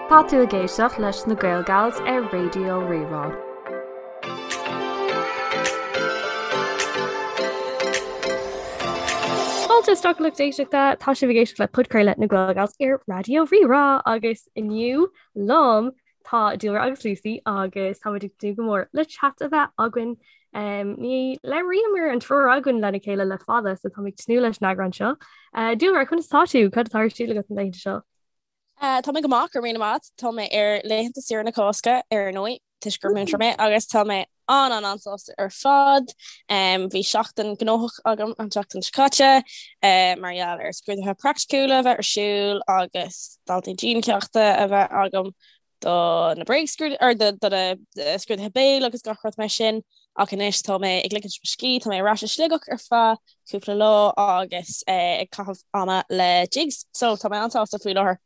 Tá tú ag éisteacht leis na Gaelgals ar Raidió Rí-Rá. Fáilte isteach a lucht éisteachta, tá sibh ag éisteacht le podchraoladh na Gaelgals ar Raidió Rí-Rá agus inniu liom tá Dúlra agus Lucy agus táimid ag tnúth go mór le chat a bheith againn. Um, ní labhraíomar an triúr againn lena chéile le fada, so táim ag tnúth leis an eagrán seo. Uh, Dúlra, conas tá tú? Cad atá ar siúl agat na laethanta seo? Tá mé go maith, go raibh míle maith. Tá mé ar laethanta saoire na Cásca, ar ndóigh, toisc gur múinteoir mé, agus tá mé an-an-an-sásta ar fad. Bhí seachtain gnóthach agam an tseachtain seo caite, mar gheall ar scrúduithe praiticiúla a bheith ar siúl agus daltaí diancheachta a bheith agam do na bréagscrúduithe, or do na scrúduithe béil agus gach rud mar sin. Ach anois tá mé ag ligint mo scíth, tá mé ar ais i Sligeach ar feadh cúpla lá agus ag caitheamh ama le Jigs, so tá mé an-sásta faoi láthair.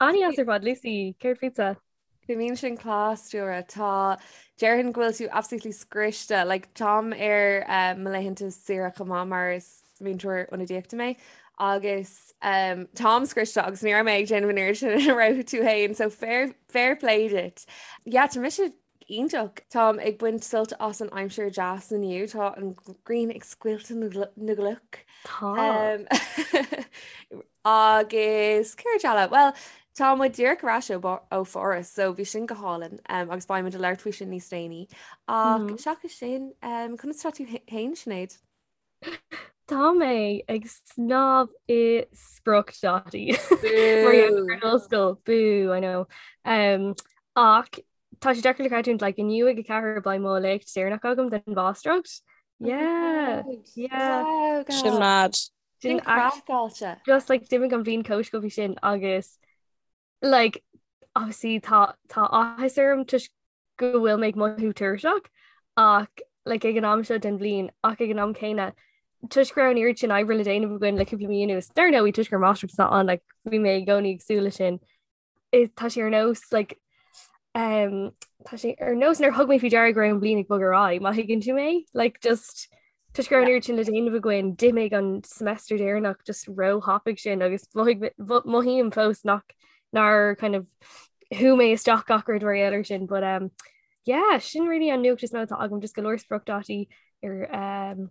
An-deas ar fad, Lucy, céard fútsa? Bíonn sin class, Dúlra. Tá, déarfainn go bhfuil tú absolutely scriosta. Like, táim ar eh, mo laethanta saoire chomh maith mar is múinteoir ionadaíochta mé agus um, táim scriosta agus ní raibh mé ag déanamh an oiread sin a raibh tú féin, so fair, fair play duit. Yeah, tá mise Iontach! Táim ag baint sult as an aimsir deas inniu. Tá an ghrian ag scoilteadh na gcloch. Tá. Agus céard eile? Bhuel, tá muid díreach ar ais ó Pháras, so bhí sin go hálainn agus beidh muid ag labhairt faoi sin níos déanaí. Ach seachas sin, conas tá tú féin, Sinéad? Tá mé ag snámh i spriocdhátaí. Mar gheall ar an ollscoil. Boo, I know. Um, ach tá sé deacair le creidiúint, like, inniu ag 4 beidh mo léacht deireanach agam den mháistreacht. Yeah, yeah. Wow, Sin mad. Sin craiceáilte. Just like d'imigh an bhliain chomh sciobtha sin agus like obviously tá tá áthas orm toisc go bhfuil mé ag mothú tuirseach ach like ag an am seo den bhliain ach ag an am céanna toisc go raibh an oiread sin oibre le déanamh againn le cúpla mí anuas dar ndóigh toisc gur máistreacht atá ann like bhí mé i gcónaí ag súil leis sin tá sé ar nós like um, tá sé ar nós nár thug mé faoi deara go raibh an bhliain ag bogadh ar aghaidh má thuigeann tú mé like just Toisc go raibh an oiread sin le déanamh againn, d'imigh an semester deireanach just róthapaidh sin agus mothaím fós nach nár kind of shú mé isteach gach rud mar gheall air sin. But um, yeah, sin really an nuacht is mó atá agam just go leor spriocdhátaí ar um,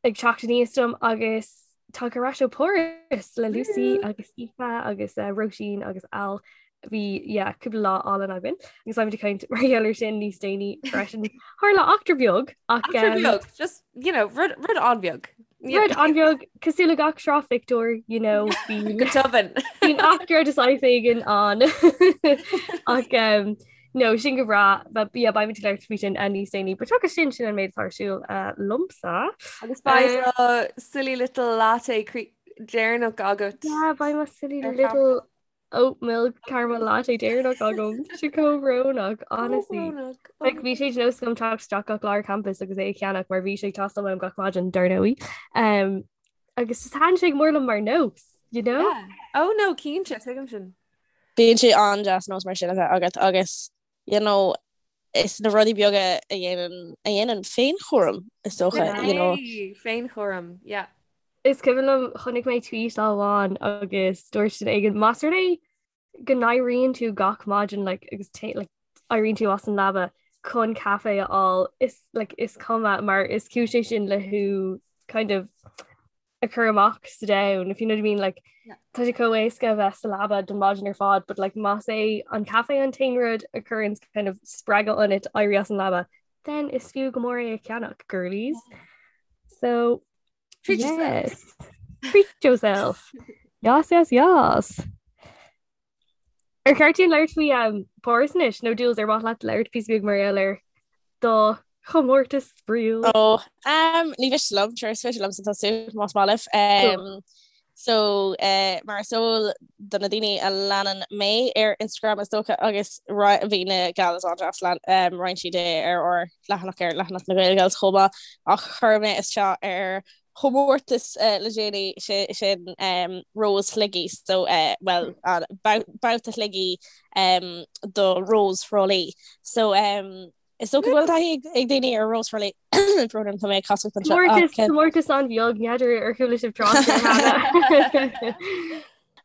ag teacht aníos dom agus tagtha ar ais ó Pháras le Lucy agus Aoife agus uh, Róisín agus Al. Bhí yeah, cúpla lá álainn againn agus beimid ag caint mar gheall air sin níos déanaí freisin. Tharla eachtra beag ach Eachtra um, beag, just, you know, rud, rud an-bheag. Rud an-bheag cosúil le gach sraith phictiúr, you know, bíonn Go tobann. bíonn eachtra de saghas éigin ann. Ach um, no, sin go breá, but yeah, beimid ag labhairt faoi sin uh, níos déanaí. But seachas sin sin an méid atá ar siúl uh, liomsa. Agus beidh do silly little latte cre- deireanach agat. Yeah, beidh mo silly little oat milk caramel latte deireanach agam. Tá sé chomh brónach, honestly. Brónach. Like, bhí sé de nós agam teacht isteach gach lá ar campus agus é a cheannach mar bhí sé ag teastáil uaim gach maidin, dar ndóigh. Um, agus just thaitin sé go mór liom mar nós, you know? Yeah. Oh no, cinnte, tuigim sin. Bíonn sé an-deas nós mar sin a bheith agat agus you know, is na rudaí beaga a dhéanann a dhéanann féinchúram is dócha, you know. Féinchúram, yeah. Is cuimhin liom chonaic mé tweet lá amháin agus dúirt duine éigin más rud é go n-éiríonn tú gach maidin like, agus like, éiríonn tú as an leaba chun caife a fháil is like, is cuma mar is cúis é sin le thú kind of a chur amach sa domhan if you know what I mean like yeah. tá sé chomh éasca a bheith sa leaba don mhaidin ar fad but like más é an caife an t-aon rud a chuireann kind of spreagadh ionat éirí as an leaba then is fiú go mór é a cheannach girlies so treat yes. yourself treat yourself yes yes yes Ar cheart dúinn labhairt faoi um, Páras anois nó Jules ar mhaith leat labhairt píosa beag mar gheall ar do chomórtas spraíúil? Ó, um, ní mhiste liom, sure, is féidir liomsa tosú más maith libh. Um, so, uh, mar is eol do na daoine a leanann mé ar Instagram is dócha agus bhí na gals an-deas lean um, roinn siad é ar ár leathanach ar leathanach na Gaelgals chomh maith ach chuir mé isteach ar chomórtas le déanaí sin Rós Shligigh so bhuel babhta Shligigh do Rós Thrá Lí. So is dócha go bhfuil taithí ag daoine ar Rós Thrá Lí brón orm tá mé ag casacht anseo. Comórtas an-bheag n'fheadar ar chuala sibh trácht air cheana.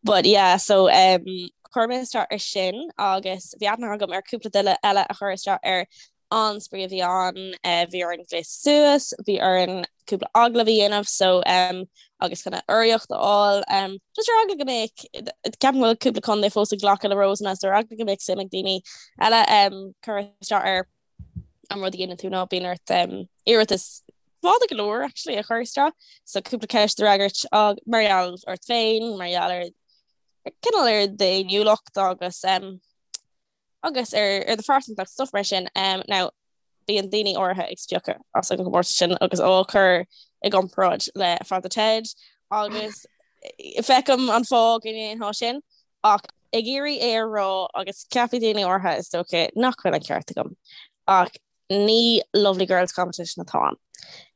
But yeah so um. chuir mé isteach ar sin agus bhí aithne agam ar cúpla duine eile a chuir isteach air. An-spraoi a bhí ann, bhí orainn gléasadh suas, bhí orainn cúpla agallamh a dhéanamh so agus kind of urraíocht a fháil. Just ar eagla go mbeadh, ceapaim go bhfuil cúpla contae fós ag glacadh le Rósanna so ar eagla go mbeadh suim ag daoine eile cur isteach air. An rud a dhéanann tú ná bíonn ort iarratas fada go leor actually a chur isteach so cúpla ceist a fhreagairt mar gheall ort féin, mar gheall ar cineál ar d'fhéiniúlacht agus agus ar ar do phearsantacht stuff mar sin. Now bíonn daoine áirithe ag spiocadh as an gcomórtas sin agus á chur i gcomparáid le Father Ted agus feicim an fáth go ndéanfá sin ach ag iarraidh é a rá agus ceapfaidh daoine áirithe is dócha nach bhfuil an ceart agam ach ní Lovely Girls Competition atá ann.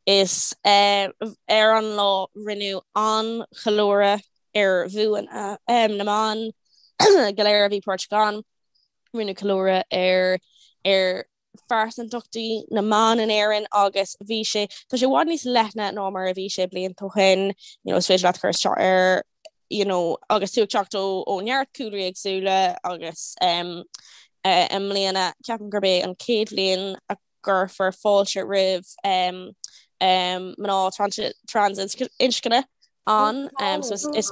Is ar an lá rinneadh an-cheiliúradh ar bhuanna na mban go léir a bhí páirteach ann. Rinneadh ceiliúradh ar ar phearsantachtaí na mban in Éirinn agus bhí sé, tá sé i bhfad níos leithne ná mar a bhí sé blianta ó shin, you know, is féidir leat cur isteach ar you know, agus tú ag teacht ó ó neart cúlraí éagsúla agus um, uh, i mbliana ceapaim gurb é an chéad bhliain a gcuirfear fáilte roimh um, um, mná trans, trans-inscne ann um, so is, is,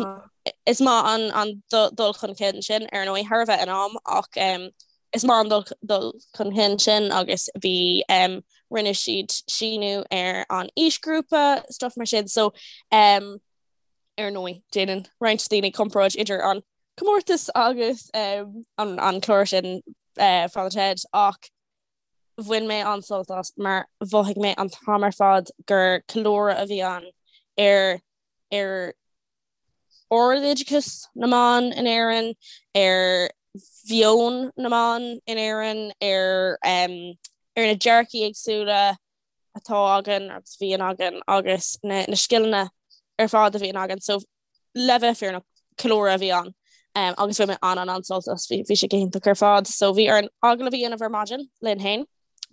is maith an, an dul chun cinn sin ar ndóigh thar a bheith in am ach um, is maith an dul, dul chun cinn sin agus bhí um, rinne siad síniú ar an aoisghrúpa stuff mar sin so um, Ar ndóigh, déanann roinnt daoine comparáid idir an comórtas agus an clár sin Father Ted ach bhain mé an-sult as mar mhothaigh mé an t-am ar fad gur ceiliúradh a bhí ann ar ar ardoideachas na mban in Éirinn, ar mheon na mban in Éirinn, ar ar na dearcaí éagsúla atá againn agus a bhíonn againn agus na scileanna ar fad a bhíonn againn. So le bheith fírinneach, ceiliúradh a bhí ann um, agus bhain mé an an an-sult as bhí sé go hiontach ar fad. So bhí orainn agallamh a dhéanamh ar maidin linn féin.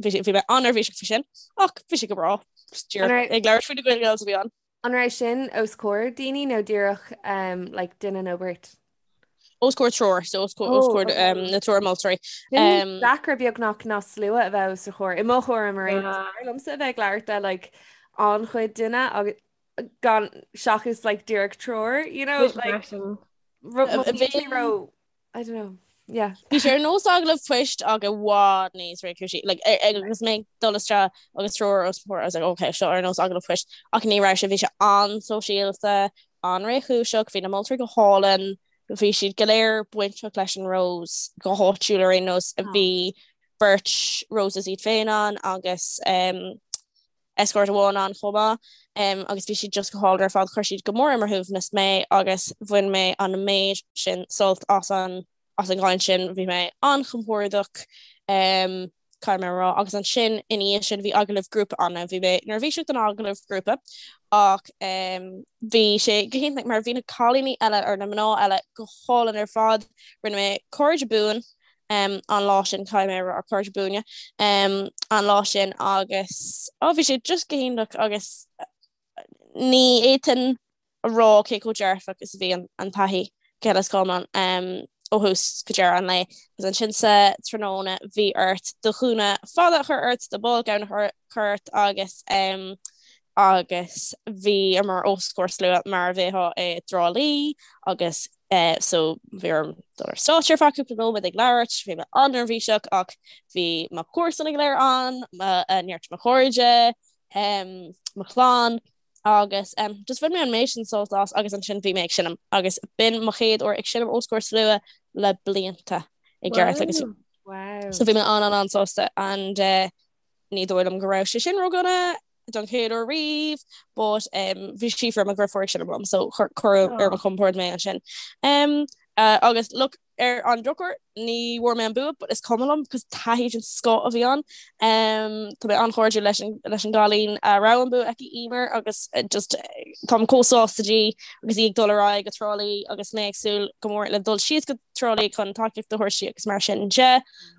Bhí bhí mé an-neirbhíseach faoi sin ach bhí sé go breá. Ag labhairt faoi na Gael Gals a bhí ann. An raibh sin os comhair daoine nó díreach um, like, duine nó beirt? Os comhair triúr, so os comhair, os comhair um, na triúr moltóirí. Um, deacra beagnach ná slua a bheith os do chomhair. I mo thuairim mar aon liomsa a bheith ag labhairt le like, an-chuid duine agus gan seachas like, díreach triúr, you know, like, ro I don't know. Yeah. Bhí sé ar nós agallamh poist ach i bhfad níos réchúisí. Like, agus mé ag dul isteach agus triúr os mo chomhair, I was like, okay, seo ar nós agallamh poist. Ach ní raibh sé, bhí sé an-sóisialta, an-réchúiseach, bhí na moltóirí go hálainn, bhí siad go léir bainteach leis an Rose go háitiúil ar aon nós. Bhí beirt Roses iad féin ann agus um, escort amháin ann chomh maith agus bhí siad just go hálainn ar fad, chuir siad go mór ar mo shuaimhneas mé agus bhain mé an méid sin sult as an as an gcaint sin, bhí mé an-chompordach caithfidh mé a rá agus ansin ina dhiaidh sin bhí agallamh grúpa ann, bhí mé neirbhíseach don agallamh grúpa ach bhí sé go hiontach mar bhí na cailíní eile or na mná eile go hálainn ar fad, rinne mé cairde buan an lá sin caithfidh mé a rá cairde buana an lá sin agus ó bhí sé just go hiontach agus ní fhéadfainn a rá cé chomh dearfach is a bhí an taithí go huile is go hiomlán ó thús go deireadh an lae. Agus ansin sa tráthnóna bhí ort do ghúna fada a chur ort, do ball gown a chur ort agus agus bhíomar os comhair slua mar a bheifeá i dTrá Lí agus so bhí orm dul ar stáitse ar feadh cúpla nóiméad ag labhairt, bhí mé an-neirbhíseach ach bhí mo chomharsana go léir ann, neart mo chairde, mo chlann agus just bhain mé an méid sin sult as agus ansin bhí mé ag seinm agus b'in mo chéad uair ag seinm os comhair slua le blianta i gceart agus so bhí mé an-an-an-sásta and eh, ní dóigh liom go raibh sé sin ródhona don chéad uair riamh but um, bhí Síofra mo dheirfiúr ag seinm liom so cuireadh ar mo chompord mé ansin. Um, uh, agus look ar an drochuair ní bhfuair mé an bua but is cuma liom cos taithí den scoth a bhí ann. Um, tá mé an-chairdiúil leis an, leis an gcailín a raibh an bua aici Emer agus uh, just táim chomh sásta di agus í ag dul ar aghaidh go Trá Lí agus mé ag súil go mór le dul síos go Trá Lí chun tacaíocht a thabhairt di agus mar sin de.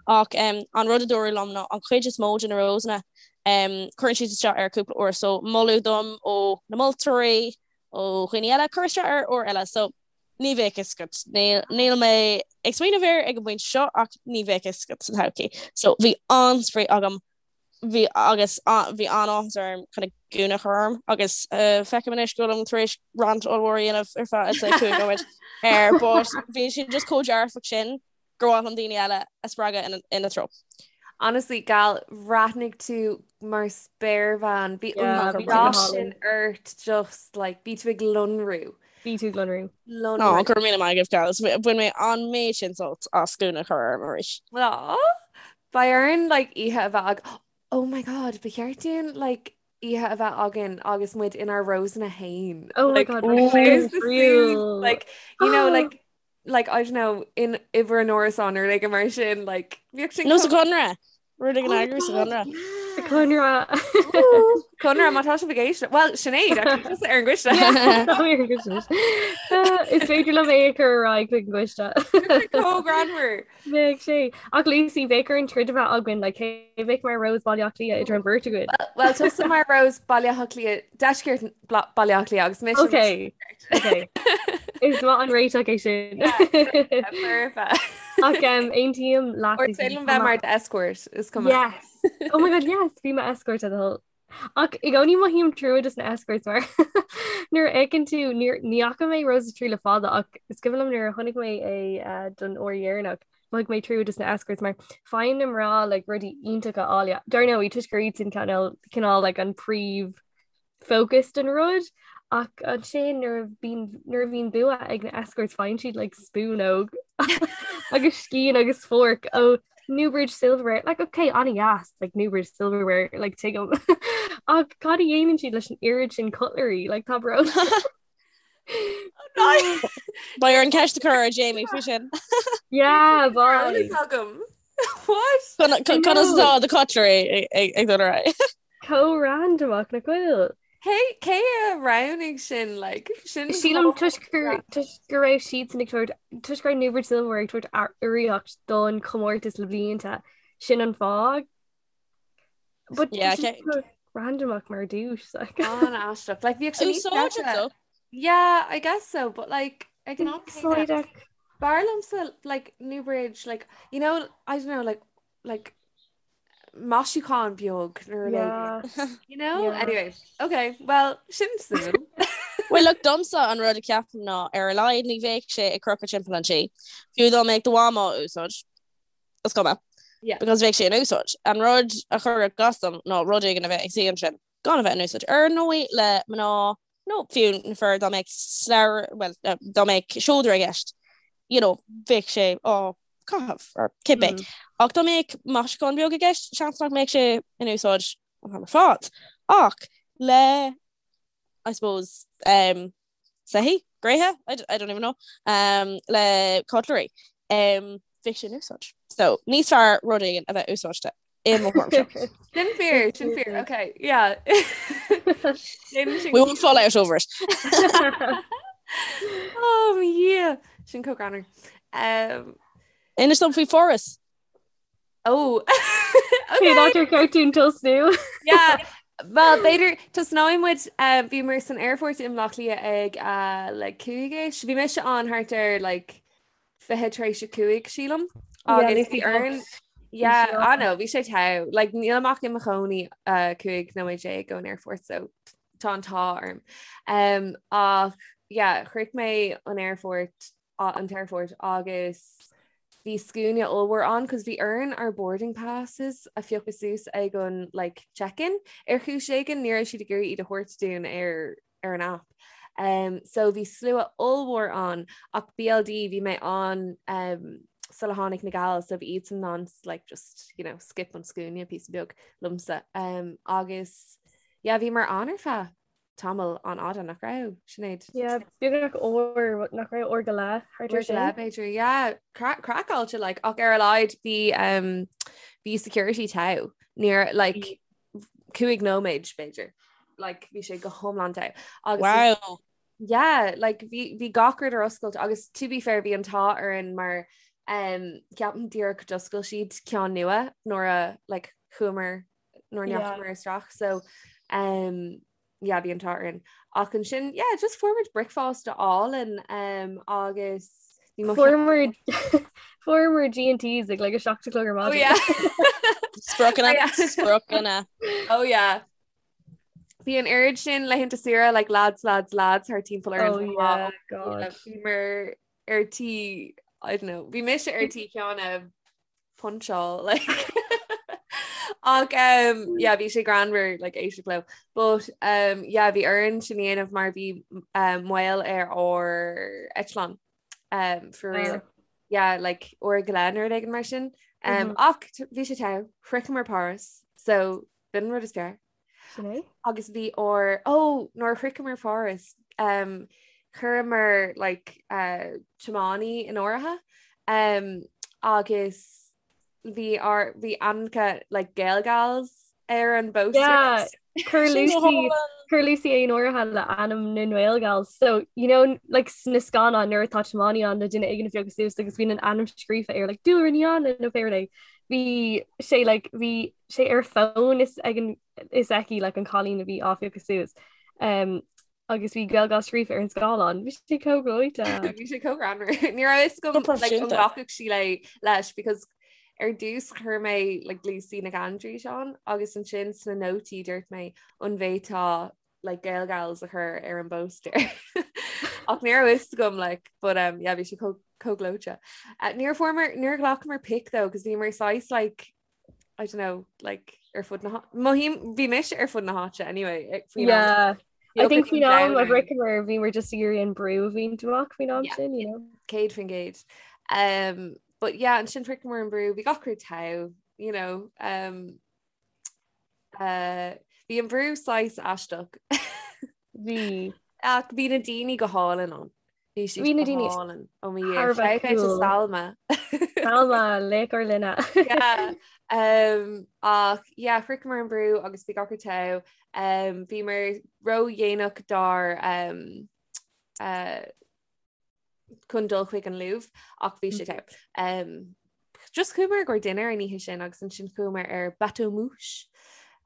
Ach um, an rud a dúradh liom ná an chuid is mó de na Rosanna Cuireann siad isteach air cúpla uair so moladh dom ó na moltóirí, ó dhaoine eile, cur isteach air uair eile. So Ní bheadh fhios agat. Níl mé ag smaoineamh air ag an bpointe seo ach ní bheadh fhios agat sa todhchaí. So bhí an-spraoi agam bhí agus bhí an-áthas orm kind of gúna a chur orm agus feicim anois go bhfuilim tar éis rant ollmhór a dhéanamh ar feadh I'd say 5 nóiméad air but bhí sé just chomh dearfach sin gur mhaith liom daoine eile a spreagadh ina treo. Honestly, gal, bhreathnaigh tú mar spéirbhean. Bhí an dath sin ort just like bhí tú ag lonrú. Bhí tú ag lonrú. Lonrú. Ó, go raibh míle maith agaibh, gals. Bhain mé an méid sin sult as gúna a chur orm arís. Aw, beidh orainn like oíche a bheith ag Oh my god, ba cheart dúinn like oíche a bheith againn agus muid inár Rosanna féin. Oh my god, like, you know, like like I don't know in uimhir an árasán nó rud éigin mar sin like bhíodh sin Nó sa Chonradh rud éigin a eagrú sa Chonradh. Sa Chonradh. Conradh má tá sibh ag éisteacht Well Sinéad actually, tusa ar an gcoiste. Is féidir liom é a chur ar aghaidh chuig an gcoiste. Chomh greannmhar. Bheadh sé. Ach Lucy, bheadh orainn troid a bheith againn, like, cé a bheadh mar Rose Baile Átha Cliath idir an bheirt againn? Well, tusa mar Rose Baile Átha Cliath, deisceart Baile Átha Cliath agus mise. Ok, ok. Is maith an réiteach é sin. Perfect. Ach um, aontaím leat. Or is féidir liom bheith mar escort, is cuma. Yes. Oh my god, yes, bí mo escort a thoil. Ach i gcónaí mothaím trua dos na escorts mar nuair a fheiceann tú ní fhaca mé Roses 3 le fada ach is cuimhin liom nuair a chonaic mé é eh, don uair dheireanach mhothaigh mé trua dos na escorts mar faigheann na mná like, rudaí iontacha áille. Dar ndóigh toisc gur iad sin cineál cineál like, an príomh focus den rud ach ansin nuair a bhíonn nuair a bhíonn bua ag na escorts faigheann siad like, spúnóg agus scian agus fork ó Newbridge Silverware, like ok an-deas, like Newbridge Silverware, like tuigim. Ach cad a dhéanann siad leis an oiread sin cutlery, like tá brón. Beidh orainn ceist a chur ar Jamie faoi sin. Yeah, bye. agam. What? Conas atá the cutlery ag dul ar aghaidh? Chomh randamach nach bhfuil. Cé cé a roghnaigh sin like sin Sílim toisc gur toisc go raibh siadsan ag tabhairt toisc go raibh Newbridge Silverware ag tabhairt urraíocht don chomórtas le blianta sin an fáth. But Yeah, tá sé okay. chomh randamach mar duais like. An-aisteach. Like bhíodh sé níos Úsáideach deise. though. Yeah, I guess so, but like ag an am céanna, Úsáideach. b'fhearr liomsa like Newbridge like you know I don't know like like maisiúchán beag nó rud éigin. You know? Yeah. Anyway, okay, well, sin suimiúil. Well, look, domsa an rud a ceapaim ná ar a laghad ní bheadh sé ag crochadh timpeall an tí. Fiú dá mbeadh do mham á úsáid, is cuma. Yeah. Because bheadh sé in úsáid. An rud a chuirfeadh as dom ná rud éigin a bheith ag suí ansin gan a bheith in úsáid. Ar ndóigh le mná nó fiú na fir dá mbeadh slabhra, well, dá mbeadh seodra i gceist, you know, bheadh sé á caitheamh or cibé. Ach dá mbeadh maisiúchán beag i gceist, seans nach mbeadh sé in úsáid an t-am ar fad. Ach le, I suppose, um, soithí, gréithe, I, I don't even know, um, le cutlery, um, bheadh sé in úsáid. So, níos fearr rud éigin a bheith úsáidte i mo thuairimse. Sin fíor, sin fíor, okay, yeah. Sin sin We won't fall out over it. Oh, yeah. Sin chomh greannmhar. Um, Inis dom faoi Pháras. oh. Cén áit ar cheart dúinn tosnú? Yeah. Well, b'fhéidir tosnóidh muid uh, bhíomar san aerfort i mBaile Átha Cliath ag uh, like cúig-ish. Bhí mise ann thart ar like 20 tar éis a 5 sílim agus bhí orainn Yeah, I know, bhí sé togha. Like, nílim ach i mo chónaí uh, 15 nóiméad ón aerfort, so tá an t-ádh orm. Um, ach yeah, shroich mé an aerfort an t-aerfort agus bhí scuaine ollmhór ann cos bhí orainn ár boarding passes a phiocadh suas ag an like, check-in ar chúis éigin ní raibh siad ag iarraidh iad a thabhairt dúinn ar ar an app. Um, so bhí slua ollmhór ann ach BLD bhí mé ann um, sula tháinig na gals so bhí iadsan in ann like just you know skip an scuaine píosa beag liomsa um, agus yeah, bhíomar ann ar feadh tamall an-fhada nach raibh Sinéad? Yeah, beagnach uair nach raibh uair go leith thart ar sin. B'fhéidir yeah, craiceáilte like ach ar a laghad bhí um, bhí security togha níor like 5 nóiméad b'fhéidir. Like bhí sé go hiomlán togha. Agus Wow. Yeah, like bhí bhí gach rud ar oscailt agus to be fair bhí an t-ádh orainn mar um, ceapaim díreach d'oscail siad ceann nua nuair a like chuamar nuair a Yeah. ndeachamar isteach so um, yeah, bhí an t-ádh orainn. Ach ansin yeah just fuair muid bricfeasta álainn um, agus bhí mo Fuaireamar fuaireamar G&T's ag like a 7 a chlog ar Oh maidin. yeah. Spriocanna, Oh yeah. spriocanna. Oh yeah. Bhí an oiread sin laethanta saoire like lads lads lads thar timpeall ar Oh an yeah, lá. God. Bhíomar ar tí I don't know, bhí mise ar tí ceann a puncháil like ach um, yeah, bhí sé greannmhar like éisteacht leo. But um, yeah, bhí orainn sin a dhéanamh mar bhí um, moill ar ár eitleán um, for real. Oh. Yeah, like uair go leith nó rud éigin mar sin. Um, Mhm. ach bhí sé togha, shroicheamar Páras, so b'in an rud is fearr. Sin é? Agus bhí ár ó nuair a shroicheamar Páras um, chuireamar like, uh, tiománaí in áirithe um, agus bhí ár bhí ainmneacha like, Gaelgals ar an bposter. Yeah, chuir Sin go Lucy hálainn. chuir Lucy é in áirithe le ainm na nGaelgals. So, you know, like sna scannáin nuair atá tiománaí ann le duine éigin a phiocadh suas agus bíonn an ainm scríofa air like Dúlra Ní Anna nó pé rud é. Bhí sé like bhí sé ar fón is ag an is aici like an cailín a bhí á phiocadh suas. Um, agus bhí Gaelgals scríofa ar an scáileán. Bhí sé chomh gleoite. Bhí sé chomh greannmhar. Ní raibh fhios Go agam like, an proifisiúnta. nglacfadh sí le leis because ar dtús chuir mé like, Lucy Nic Aindreis ann agus ansin sna nótaí dúirt mé an bhféadfá like, Gaelgals a chur ar an bpóstaer. Ach ní raibh fhios agam like, but um, yeah, bhí sé chomh chomh gleoite. Uh, níor fuaireamar níor ghlacamar pic though, cos bhíomar saghas like I don't know, like ar fud na mothaím bhí mise ar fud na háite anyway eh, faoin am. Yeah. Bhí I think ocras faoin am a an domhain orainn. shroicheamar bhíomar just ag iarraidh an brú a bhaint amach faoin am Yeah. sin, you know. 100%. Um, but yeah, ansin shroicheamar an brú, bhí gach rud togha, you know, um, uh, bhí an brú saghas aisteach. Bhí. Ach bhí na daoine go hálainn ann. Bhí siad Bhí na go daoine hálainn ó mo Dhia. thar a bheith Shout out to cool. Salma. Salma, laoch ár linne. Yeah. Um, ach yeah, shroicheamar an brú agus bhí gach rud togha. Um, bhíomar ródhéanach dár um, uh, chun dul chuig an Louvre ach bhí sé togha. Um, just chuamar i gcomhair dinnéir an oíche sin agus ansin chuamar ar bateau mouche.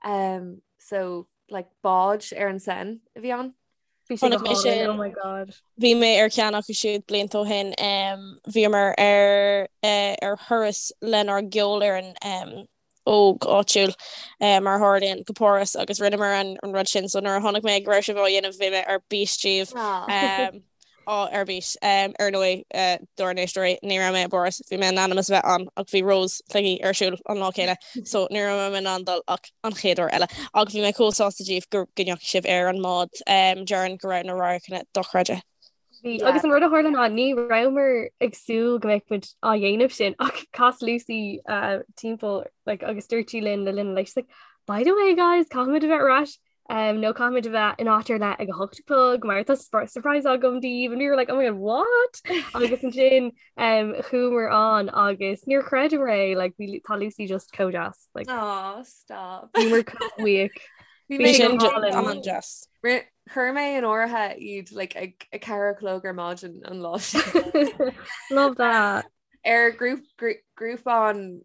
Um, so like bád ar an Seine a bhí ann. Bhí sé go Chonaic mé hálainn, sin. oh my god. Bhí mé ar cheann acu siúd blianta ó shin. Um, bhíomar ar uh, ar thuras lenár gceolfhoireann um, óg áitiúil uh, mar a tharlaíonn go Páras agus rinneamar an, an rud sin so nuair a chonaic mé go raibh sibh á dhéanamh bhí mé ar bís díobh. Ah. Um, á ar bís. Um, ar ndóigh uh, dár n-éisteoirí ní raibh mé i bPáras, bhí mé in ainm is a bheith ann ach bhí Rós Shligigh ar siúl an lá céanna so ní raibh mé in ann dul ach an chéad uair eile. Ach bhí mé chomh sásta díobh go go ndeachaigh sibh ar an mbád um, déarfainn go raibh na radharcanna dochreidte. Bhí Yeah. agus an rud a tharla ná ní rabhamar ag súil go mbeadh muid á dhéanamh sin ach chas Lucy uh, timpeall like, agus dúirt sí linn le linn an lae, she's like, By the way guys, caithfimid a bheith ar ais um, nó caithfimid a bheith in áit ar leith ag a hocht a chlog mar tá surprise agam daoibh and we were like oh my god what agus ansin um, chuamar ann agus níor chreideamar é like, bhí tá Lucy just chomh deas like, Oh, stop. bhíomar chomh buíoch. Bhí Bhí mé sé Sin go hálainn. an-deas. Ri- Chuir mé in áirithe iad like, ag a ceathair a chlog ar maidin an lá sin. Love that. Ar grúpán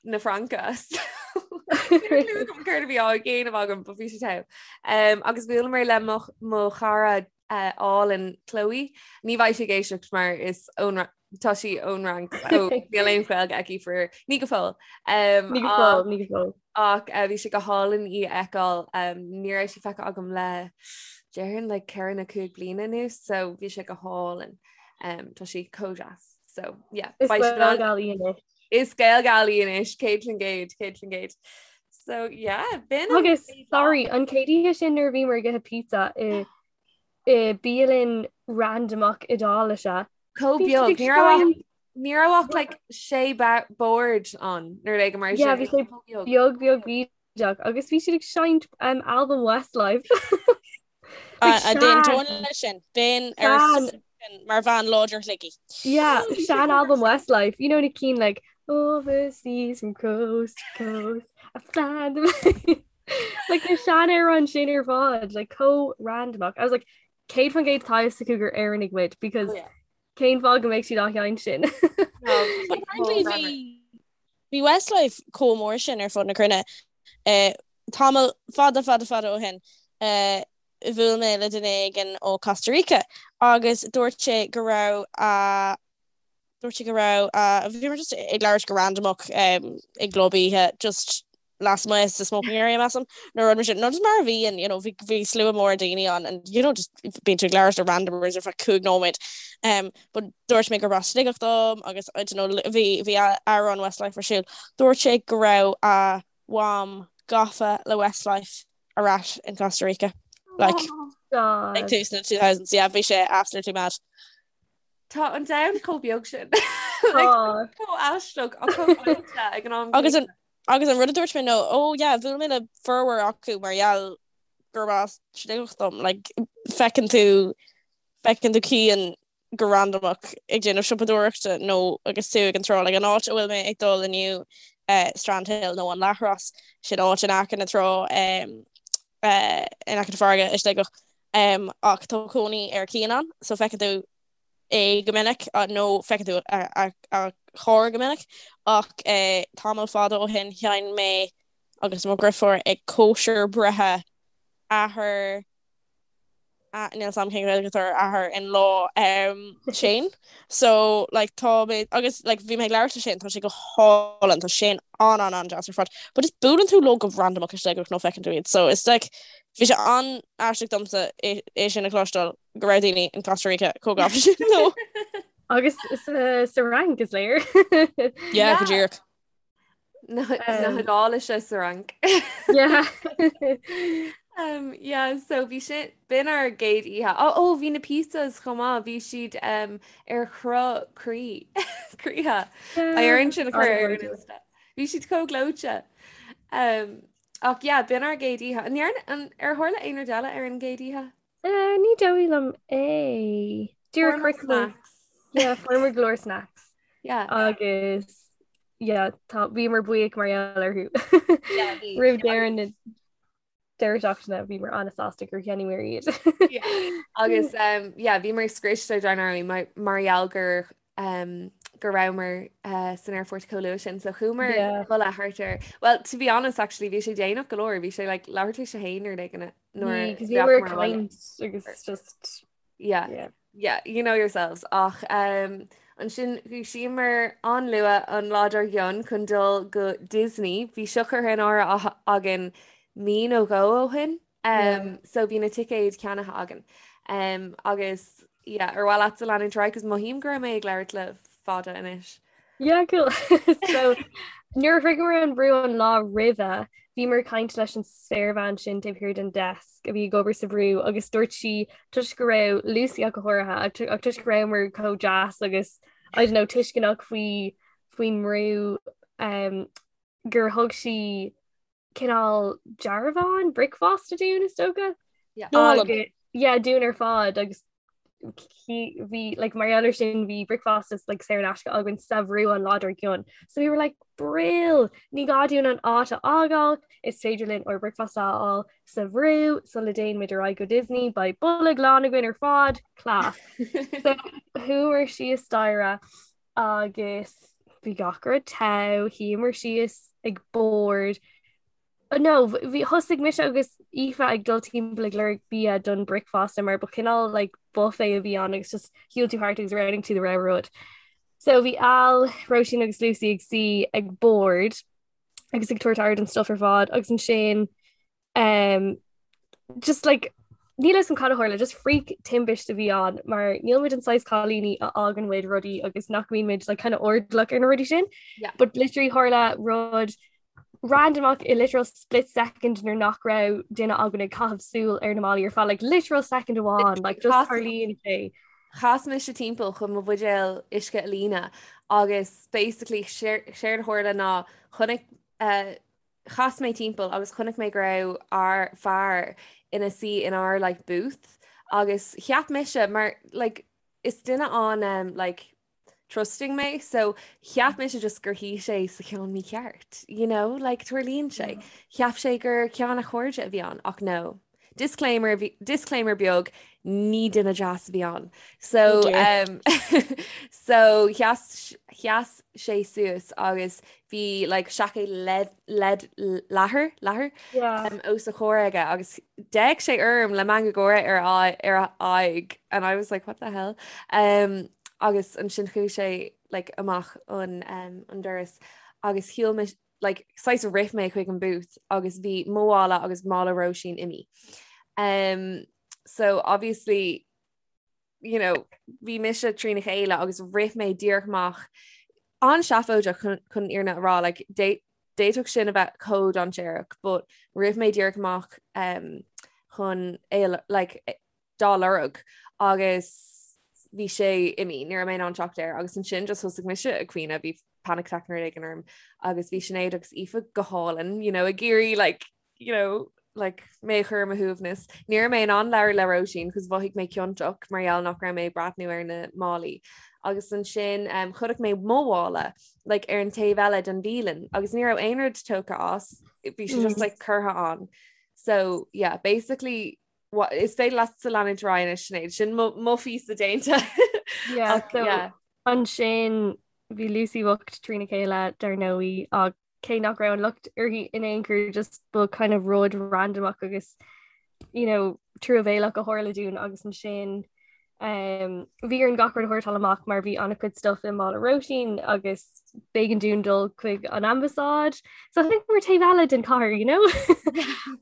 na Fraince. Céard a bhí á dhéanamh agam but bhí sé togha. Agus bhuaileamar le mo chara álainn Chloe. Ní bheidh sí ag éisteacht mar is ón tá sí ón Fhrainc so níl aon Ghaeilge aici for ní go fóill. Ní go fóill, ní go fóill. Ach bhí sé go hálainn í a fheiceáil. Ní raibh sí feicthe agam le déarfainn like 4 nó 5 bliana anuas so bhí sé go hálainn. Tá sí chomh deas. So yeah. Is Gaelgal í anois. Is Gaelgal í anois, 100%, 100%. So yeah, b'in an Agus chéad lá. sorry, an chéad oíche sin nuair a bhíomar ag ithe pizza i i bialann randomach Iodáilise. Chomh Bhí siad beag. ag Ní raibh ach seinm ní raibh ach like sé bord ann nó rud éigin mar Yeah, sin. bhí sé Chomh beag. beag beag bídeach agus bhí siad ag seinnt um, album Westlife. Like A sean d'aontóinn leis sin, bheinn ar sean sin mar bhean láidir Shligigh. yeah, sean album Westlife. You know na cinn like overseas from coast to coast I find them like na seanamhráin sin ar fad like chomh randomach. I was like 100% tá a fhios acu gur Éireannaigh muid because Oh yeah. cén fáth go mbeadh siad á sheinnt sin. No, But bhí sé apparently chomh greannmhar. bhí bhí Westlife chomh mór sin ar fud na cruinne eh, tamall fada fada fada ó shin. Eh, bhuail mé le duine éigin ó Costa Rica agus dúirt sé go raibh a dúirt sé go raibh a bhíomar just ag labhairt go randamach um, i gclub oíche just lasmuigh sa smoking area measaim nó rud mar sin nó just mar a bhíonn you know bhí bhí slua mór daoine ann and you know just bíonn tú ag labhairt le randomers ar feadh 5 nóiméad um, but dúirt mé gur as Sligeach dom agus I don't know bhí bhí amhrán Westlife ar siúl dúirt sé go raibh a mham gafa le Westlife ar ais in Costa Rica like Oh, ag tús na 2000s yeah bhí sé absolutely mad. Tá an domhan chomh beag sin. Like, Oh. chomh aisteach ach chomh áite ag an am Agus an agus an rud a dúirt mé nó oh yeah bhuail mé le formhór acu mar gheall gurb as Sligeach dom like feiceann tú feiceann tú Cian go randamach ag déanamh siopadóireachta nó agus tú ag an trá like an áit a bhfuil mé ag dul inniu eh, Strandhill nó an Leathros sin áit in aice na trá um, eh, in aice na farraige i Sligeach um, ach tá cónaí ar Cian ann so feiceann tú é go minic nó feiceann tú a, a, a charr go minic ach eh, tamall fada ó shin sheinn mé agus mo dheirfiúr ag cóisir breithe athair Níl a fhios agam cén Ghaeilge atá ar athair in law Shane so like tá mé agus like bhí mé ag labhairt le Shane tá sé go hálainn tá Shane an an an deas ar fad but just buaileann tú leo go randamach i Sligeach nó feiceann tú iad so it's like bhí sé an-aisteach domsa é é sin a chloisteáil go raibh daoine in Costa Rica chomh gafa sin leo. Agus sa Fhrainc is léir. Yeah, go díreach. Na hIodáilise sa Fhrainc. Yeah. Um, yeah, so bhí sin b'in ár gcéad oíche. Ó ó bhí na pizzas chomh maith, bhí siad um, ar chruth croí croíthe. Beidh orainn sin a chur ar an Insta. Bhí siad chomh gleoite. Um, ach yeah, b'in ár gcéad oíche. An ndearna- an- ar tharla aon rud eile ar an gcéad oíche? Uh, ní dóigh liom é. Dúirt Fuair muid snacks. Yeah, fuair muid go leor snacks. Yeah. Agus yeah, tá bhíomar buíoch mar gheall orthu. Yeah, bhí. Roimh deireadh na deireadh seachtaine bhíomar an-sásta gur cheannaíomar iad. Yeah. Agus um, yeah, bhíomar scriosta dar ndóigh mar mar gheall gur um, go rabhamar uh, san aerfort chomh luath sin, so chuamar Yeah. a chodladh thart ar. Well, to be honest, actually, bhí sé déanach go leor, bhí sé like, leathuair tar éis a haon nó rud éigin nuair Bhí, 'cause bhíomar ag caint agus just Yeah. yeah. Yeah, you know yourselves. Ach um, ansin dhúisíomar an-luath an lá dár gcionn chun dul go Disney. Bhí seo curtha in áirithe againn mí nó dhó ó shin. Um, so bhí na ticéid ceannaithe againn. Um, agus yeah, ar mhaith leatsa leanúint ar aghaidh, 'cause mothaím go raibh mé ag labhairt le fada anois. Yeah, cool. So nuair a shroicheamar an brú an lá roimhe, bhíomar ag caint leis an spéirbhean sin taobh thiar den desk a bhí ag obair sa bhrú agus dúirt sí toisc go raibh Lucy ach go háirithe ach ach toisc go rabhamar chomh deas agus I don't know tuisceanach faoi faoin mbrú um, gur thug sí cineál dearbhán bricfeasta dúinn is dócha. Yeah. Agus yeah, dúinn ar fad agus bhí like, mar gheall air sin bhí bricfeasta like, saor in aisce againn sa bhrú an lá dár gcionn. So we were like brill ní gá dúinn an áit a fhágáil is féidir linn ár bricfeasta a fháil sa bhrú sula dtéann muid ar aghaidh go Disney beidh bolg lán againn ar fad class. So chuamar síos staighre agus bhí gach rud togha, shuíomar síos ag bord. No, bhí thosaigh mise agus Aoife ag dul timpeall ag lorg bia don bricfeasta mar ba chineál like buffet a bhí ann agus just shiúil tú thart agus roghnaigh tú do rogha rud. So bhí Al, Róisín agus Lucy ag suí ag bord agus ag tabhairt aire don stuff ar fad agus ansin Um, just like níl a fhios agam cad a tharla, just freak timpiste a bhí ann mar níl muid an saghas cailíní a fhágann muid rudaí agus nach mbíonn muid like, kind of airdeallach ar na rudaí sin. Yeah. But literally tharla rud randomach i literal split second nuair nach raibh duine againn ag caitheamh súil ar na málaí ar feadh like literal second amháin like just Chas- tarlaíonn sé. Chas mise timpeall chun mo bhuidéal uisce a líonadh agus basically séard a tharla ná chonaic uh, Chas mé timpeall agus chonaic mé go raibh ár fear ina suí in ár like booth agus cheap mise mar like is duine an um, like trusting mé so cheap mise just gur shuigh sé sa cheann mícheart you know like tarlaíonn sé. Cheap sé gur ceann a chairde a bhí ann ach no. Disclaimer disclaimer beag. Ní duine deas a bhí ann. So, um, so sheas, sheas sé suas agus bhí like, seaicéad lead, lead, leathair, leathair yeah. um, os a chomhair aige agus d'fhéach sé orm le meangadh gáire ar a, ar a aghaidh and I was like what the hell um, agus ansin chuaigh sé like, amach an, um, an doras agus shiúil mé like, saghas rith mé chuig an booth agus bhí mo mhála agus mála Róisín imithe. Um, so obviously you know, bhí mise trína chéile agus rith mé díreach amach an-seafóideach chun chun an fhírinne a rá like, d'fhéadfadh sin a bheith chomh dainséarach, but rith mé díreach amach um, chun é like, dá lorg agus bhí sé imithe, ní raibh mé in ann teacht air agus ansin just thosaigh mise ag caoineadh, bhí panic attack nó rud éigin orm agus bhí Sinéad agus Aoife go hálainn, you know, ag iarraidh like, you know, like, mé a chur ar mo shuaimhneas. Ní raibh mé in ann labhairt le Róisín cos mhothaigh mé ciontach mar gheall nach raibh mé ag breathnú ar na málaí. Agus ansin um, chonaic mé mo mhála like, ar an taobh eile den bhialann agus ní raibh aon rud tógtha as, bhí sé just mm. like, curtha ann. So yeah, basically Is féidir leatsa leanúint ar aghaidh anois Sinéad, sin mo phíosa déanta. Yeah, so yeah. Ansin bhí Lucy bocht trína chéile dar ndóigh ach cé nach raibh an locht uirthi in aon chor just ba kind of rud randomach agus you know, truamhéalach a tharla dúinn agus ansin um, bhí orainn gach rud a shórtáil amach mar bhí an-chuid stuff i mála Róisín agus b'éigean dúinn dul chuig an ambasáid. So I think we're taobh eile den chathair, you know?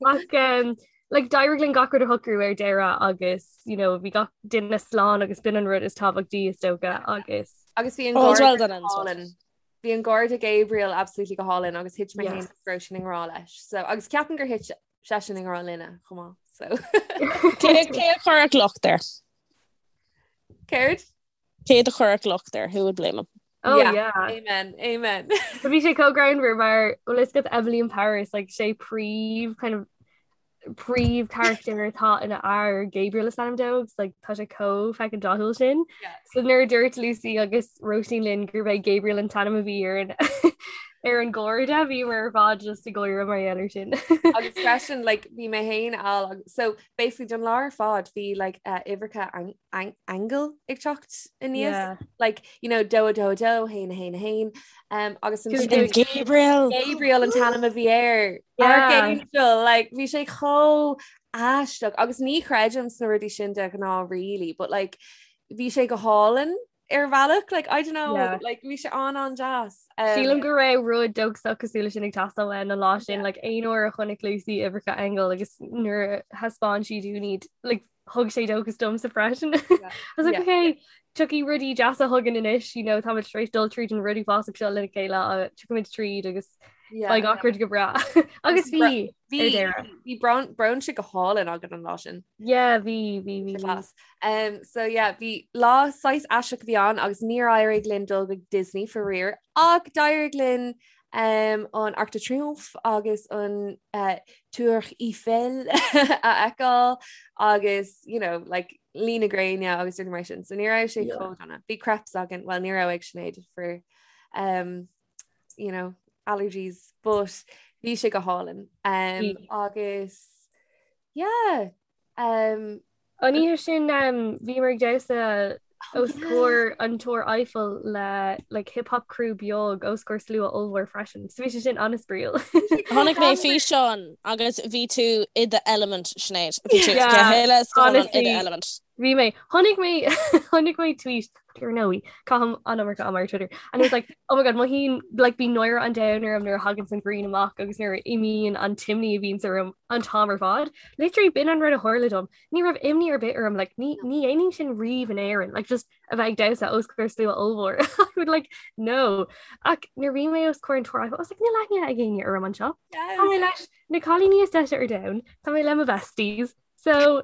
Ach um, like, d'éirigh linn gach rud a shocrú ar deireadh agus you know, bhí gach duine slán agus b'in an rud is tábhachtaí is dócha agus Agus bhí an All's well done ends well. Bhí an garda Gabriel absolutely go hálainn agus thit mé féin agus Róisín i ngrá leis. So agus ceapaim gur thit seisean i ngrá linne chomh maith. So Cé cé a chuirfeadh locht air? Céard? Cé a chuirfeadh locht air? Who would blame him? Oh yeah. yeah. Amen. Amen. Bhí sé chomh greannmhar mar bhfuil a fhios agat Emily in Paris like sé príomh kind of príomh character atá ina fhear Gabriel is ainm dó agus like tá sé chomh fucking dathúil sin. Yeah. So nuair a dúirt Lucy agus Róisín linn gurb é Gabriel an t-ainm a bhí ar an ar an gharda bhíomar ar fad just ag gáire mar gheall air sin. Agus freisin like bhí mé féin al so basically don lá ar fad bhí like uh, uimhreacha aingeal ag teacht aníos yeah. like you know dó dó dó haon haon haon um, agus Gabriel Gabriel an t-ainm a bhí air yeah. Archangel like bhí sé chomh aisteach agus ní chreidim sna rudaí sin de ghnáth really but like bhí sé go hálainn ar bhealach like I don't know yeah. like bhí sé an an-deas um, Sílim go raibh rud dóchasach cosúil leis sin ag teastáil uainn an lá sin yeah. like aon uair a chonaic Lucy uimhreacha aingeal agus nuair a thaispeáin sí dúinn iad like thug sé dóchas domsa freisin. I was like, okay, tiocfaidh rudaí deasa chugainn anois, you know, táimid tar éis dul tríd an rud uafásach seo lena chéile, uh, tiocfaimid tríd agus beidh gach rud go breá. Agus bhí bhí bhí brunch go hálainn againn an lá sin. Yeah, bhí bhí bhí. Class. Um, so yeah, bhí lá saghas aisteach a bhí ann agus níor éirigh linn dul go Disney faraor ach d'éirigh linn um, an Arc de Triomphe agus an uh, Tour Eiffel a fheiceáil agus you know, like, luí na gréine agus rudaí mar sin. So ní raibh sé chomh dona. Bhí crepes againn, well ní raibh ag Sinéad for um, you know, allergies, but bhí sé go hálainn. Um, agus yeah, Um, An oíche sin um, bhíomar ag damhsa os comhair an Túr Eiffel le like, hip hop crew beag os comhair slua ollmhór freisin. So bhí sé sin an-spraíúil. Chonaic mé físeán agus bhí tú i do element Sinéad. Bhí tú yeah, honestly, i do element. Bhí mé chonaic mé chonaic mé tweet ar ndóigh caithim an iomarca ama ar Twitter and it was like oh my god mothaím like bíonn náire an domhain orm nuair a thagann an ghrian amach agus nuair a imíonn an t-imní a bhíonns orm an t-am ar fad. Literally b'in an rud a tharla dom. Ní raibh imní ar bith orm like ní ní dhéanaim sin riamh in Éirinn like just a bheith ag damhsa os comhair slua ollmhór. I would like no. Ach nuair bhí mé os comhair an Túr I was like níl aithne ag éinne orm anseo. Tá mé leis na cailíní is deise ar domhan, tá mé le mo besties. So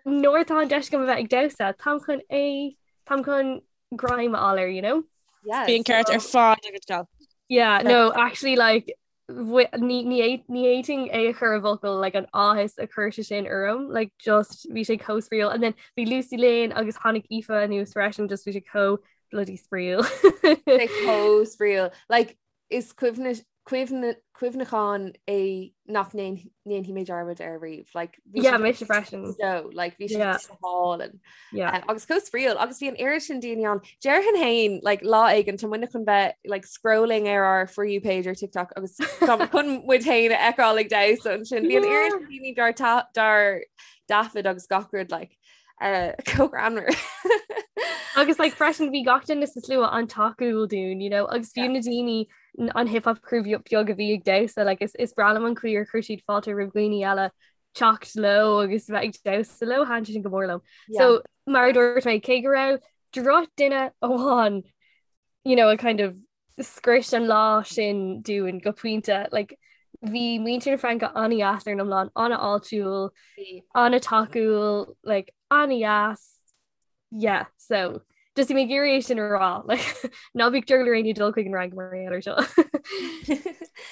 Nuair atá an deis agam a bheith ag damhsa, táim chun é, táim chun greim a fháil air, you know? Yes. Bhí an ceart ar fad agat gal. Yeah, no, actually like ní ní fhéadfainn é a chur i bhfocail like an áthas a chuir sé sin orm, like just bhí sé chomh spraíúil and then bhí Lucy linn agus tháinig Aoife anuas freisin just bhí sé chomh bloody spraíúil. Sé chomh spraíúil. Like is cuimhin cuimhneachán é nach ndéanfaidh mé dearmad air riamh. Like, bhí Yeah, mise freisin. So, like, bhí sé Yeah. go hálainn. Yeah. Um, agus chomh spraíúil agus bhí an oiread sin daoine ann. Déarfainn féin like, lá éigin tá muidne chun bheith like, scrolling ar ár For You page ar TikTok agus tá chun muid féin a fheiceáil ag damhsa ansin. Bhí an oiread sin daoine dár ta- dár dtaifead agus gach rud like, uh, chomh greannmhar. Agus like, freisin bhí gach duine sa slua an-tacúil dúinn, you know, agus fiú na daoine an hip hop crew beag a bhí ag damhsa like, is, is breá liom an chaoi ar chuir siad fáilte roimh dhaoine eile teacht leo agus bheith ag damhsa leo thaitin sin go mór liom. Yeah. So mar a dúirt mé cé go raibh drochdhuine amháin you know, a kind of scrios an lá sin dúinn go pointe like, bhí muintir na Fraince an-deas ar an iomlán an-fháiltiúil an-tacúil like, an-deas Yeah, so just bhí mé ag iarraidh é sin a rá like, ná bíodh drogall ar éinne dul chuig an Fhrainc mar gheall air seo.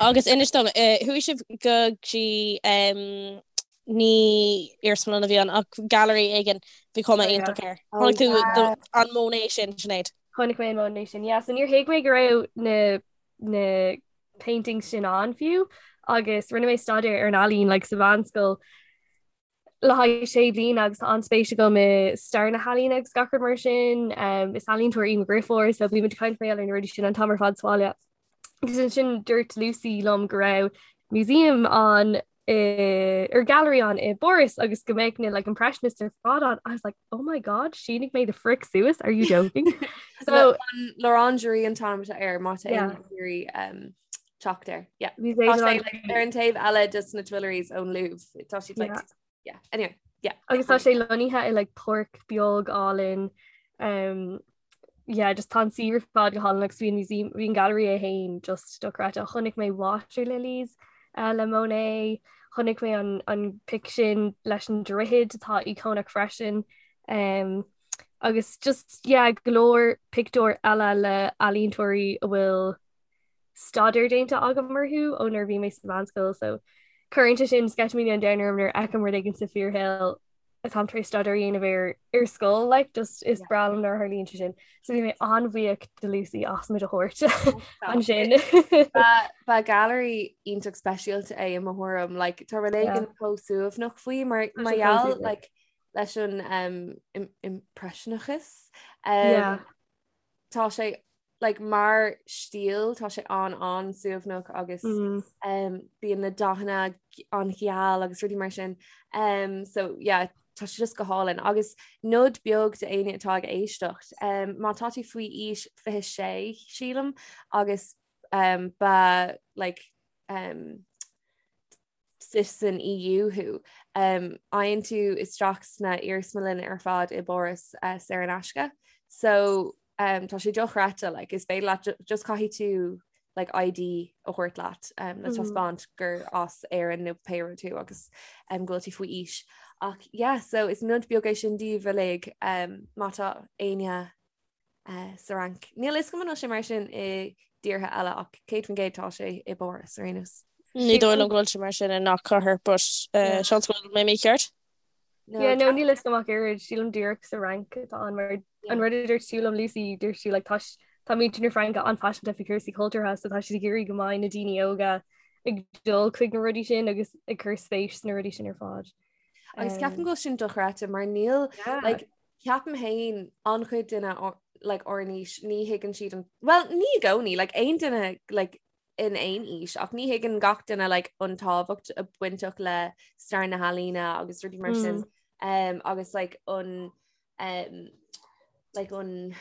Agus inis dom, eh, chuaigh sibh go dtí em, ní iarsmalann a bhí ann ach gallery éigin bhí cuma Oh, yeah. iontach air. Oh, Chonaic tú yeah. do- an Monet sin, Sinéad. Chonaic mé an Monet sin. Yeah, so níor thuig mé go raibh na na paintings sin ann fiú agus rinne mé staidéar ar an ealaín like, sa mheánscoil le haghaidh sé bliana agus tá an-spéis agam i stair na healaíne agus gach rud mar sin. Um, is ealaíontóir í mo dheirfiúr, so bímid ag caint mar gheall ar na rudaí sin an t-am ar fad sa bhaile. Agus ansin dúirt Lucy liom go raibh museum ann i, or gallery ann i bPáras agus go mbeadh na like, impressionists ar fad ann. I was like, oh my god, shínigh mé the frick suas, are you joking? So L'Orangerie an t-ainm atá air má tá Yeah. éinne ag iarraidh um, teacht air. Yeah. Bhí Tá sé like, ar an taobh eile de na Tuileries ón Louvre. Tá siad like, Yeah. yeah. Anyway, yeah. Agus tá sé lonnaithe i like páirc beag álainn um, yeah, just tá an suíomh ar fad go hálainn agus bhí an museum bhí an gallery é féin just dochreidte. Chonaic mé Water Lilies uh, le Monet, chonaic mé an, an pic sin leis an droichead atá íocónach freisin. Um, agus just yeah, go leor pictiúr eile le ealaíontóirí a bhfuil staidéar déanta agam orthu ó nuair a bhí mé sa mheánscoil so cuireann sé sin sceitimíní an domhain orm nuair a fheicim rud éigin sa fíorshaol atáim tar éis staidéar a dhéanamh air ar scoil like just is breá liom nuair a tharlaíonn sé sin. So bhí mé an-bhuíoch de Lucy as muid a thabhairt ansin. Ba gallery iontach speisialta é i mo thuairim like tá rud éigin chomh suaimhneach faoi mar mar gheall like leis an um, impreisineachas. Um, yeah. Tá sé like mar stíl tá sé an an-suaimhneach agus mm. um, bíonn na dathanna an-gheal agus rudaí mar sin um, so yeah, tá sé just go hálainn agus nod beag d'éinne atá ag éisteacht um, má tá tú faoi aois 26 sílim agus um, ba like um, citizen EU thú. Faigheann tú isteach sna iarsmalanna ar fad i bPáras saor in aisce. So tá sé dochreidte, like, is féidir leat just caithfidh tú like, ID a thabhairt leat um, le taispeáint gur as Éirinn nó pé rud tú agus um, go bhfuil tú faoi aois. Ach yeah, so is nod beag é sin daoibh uilig um, má tá éinne sa Fhrainc. Níl a fhios agam an bhfuil sé mar sin i dtíortha eile ach 100% tá sé i bPáras ar aon nós. Ní dóigh liom go bhfuil sé mar sin i ngach cathair but seans go bhfuil mé mícheart. Yeah, no, níl a fhios agam ach oiread, sílim díreach sa Fhrainc atá ann mar an rud a dúirt tú liom Lucy, dúirt tú like tá tá muintir na Fraince an-phaiseanta faoi chúrsaí cultúrtha so tá siad ag iarraidh go mbeidh na daoine óga ag dul chuig na rudaí sin agus ag cur spéis sna rudaí sin ar fad. Agus ceapaim go bhfuil sin dochreidte mar níl like Ceapaim féin an-chuid duine like ár n-aois ní thuigeann siad an well ní i gcónaí like aon duine like in aon aois ach ní thuigeann gach duine like an tábhacht a bainteach le stair na healaíne agus rudaí mar sin um, agus like an um, like an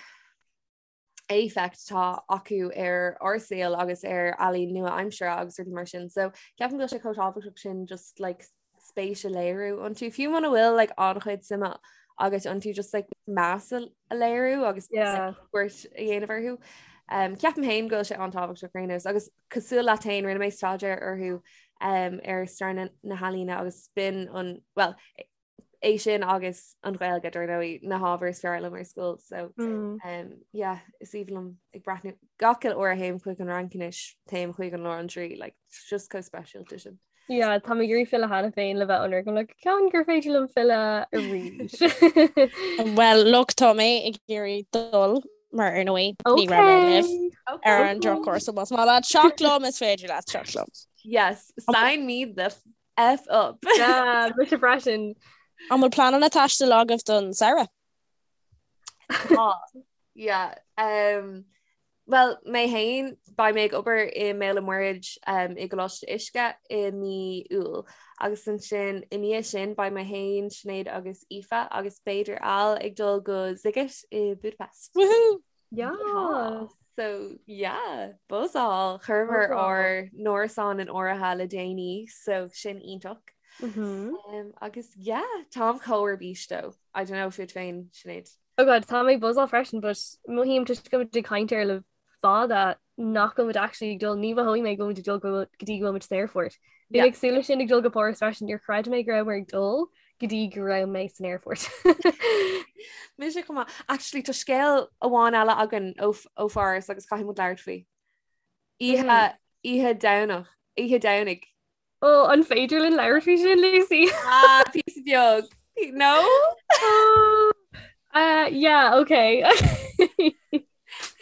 éifeacht atá acu ar ár saol agus ar ealaín nua-aimseartha agus rudaí mar sin. So ceapaim go bhfuil sé chomh tábhachtach sin just like spéis a léiriú iontu. Fiú muna bhfuil like an-chuid suime agat iontu just like meas a léiriú agus Yeah. cuairt a dhéanamh orthu. Um, ceapaim féin go bhfuil sé an-tábhachtach ar aon nós agus cosúil leat féin rinne mé staidéar orthu um, ar stair na, na healaíne agus b'in an well é sin agus an Ghaeilge dar ndóigh na hábhair is fearr liom ar scoil so mm. um, yeah, is aoibhinn liom ag breathnú gach uile uair a théim chuig an Fhrainc anois téim chuig an L'Orangerie like, just chomh speisialta sin. Yeah, tá mé ag iarraidh filleadh cheana féin le bheith ionraic I'm like ceann gur féidir liom filleadh arís. Well look tá mé ag iarraidh dul. Mar ar ndóigh ní raibh mé libh ar an drochuair so más maith leat teacht liom is féidir leat teacht liom. Yes, sign me the F up. Yeah, mise freisin. An bhfuil pleananna taistil agaibh don samhradh? Tá. Yeah. Um, well, mé féin, beidh mé ag obair i mBéal an Mhuirthead um, i gColáiste Uisce i mí Iúil. Agus ansin i ndiaidh sin beidh mé féin, Sinéad agus Aoife agus b'fhéidir Al ag dul go Sziget i Budapest. Woohoo! Yeah. So yeah, buzzáil chuireamar ár n-árasán in áirithe le déanaí, so sin iontach. Mm -hmm. um, agus yeah, táim chomh ar bís dó. I don't know fút féin Sinéad. Oh God, tá mé ag buzzáil freisin, but mothaím toisc go bhfuil muid ag caint air le fada nach bhfuil muid actually ag dul, ní mhothóidh mé go bhfuil muid ag dul go dtí go bhfuil muid san aerfort. Bhí mé ag súil leis sin ag dul go Páras freisin, níor chreid mé go rabhamar ag dul go dtí go raibh mé san aerfort. Mise chomh maith. Actually tá scéal amháin eile againn ó ó Pháras agus caithfidh muid labhairt faoi. Oíche mm. oíche Domhnach, oíche Domhnaigh. Ó an féidir linn labhairt faoi sin Lucy? Ah, píosa beag. No? Oh, uh, yeah, okay.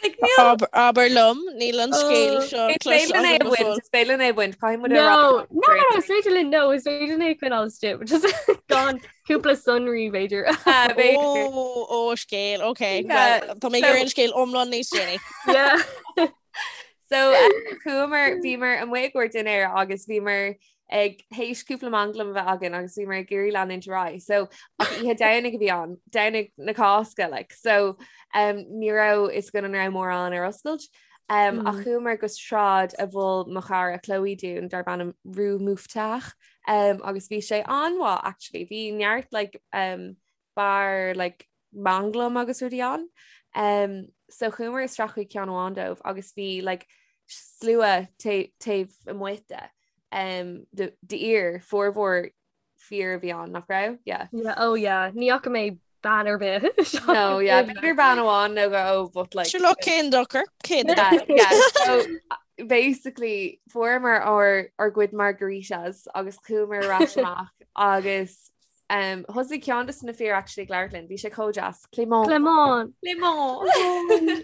Like, níl- Abair liom, níl an scéal Oh. seo Is féidir linn é a bhaint, is féidir linn é a bhaint, caithfidh muid a rá. No, no, no, no, is féidir linn, no, is féidir linn é a choinneáil istigh, but just gan cúpla sonraí b'fhéidir. Ah, b'fhéidir. Ó, ó, scéal, ok. Yeah, Well, Tá mé ag iarraidh an scéal iomlán níos déanaí. Yeah. So uh, chuamar bhíomar amuigh i gcomhair dinnéir agus bhíomar ag théis cúpla manglam a bheith againn agus bhíomar ag iarraidh leanúint ar aghaidh. So ach oíche Domhnaigh a bhí ann, Domhnach na Cásca like. So um, ní raibh fhios againn an raibh mórán ar oscailt. Um, mm. Ach chuamar go sráid a mhol mo chara Chloe dúinn darb ainm Rue Mouffetard um, agus bhí sé an-mhaith actually. Bhí neart like, um, beár like, manglam agus rudaí ann. Um, so chuamar isteach chuig ceann amháin dóibh agus bhí like, slua taobh amuigh de um, d'fhir formhór fir a bhí ann nach raibh? Yeah. Yeah, oh yeah. Ní fhaca mé bean ar bith. No, yeah, b'fhéidir bean amháin nó go but like Sure look cén dochar cén yeah, yeah. So basically fuaireamar ár ár gcuid margaritas agus chuamar ar ais amach agus Um, thosaigh ceann de na fir actually ag labhairt linn, bhí sé chomh deas. Clément. Clément. Clément.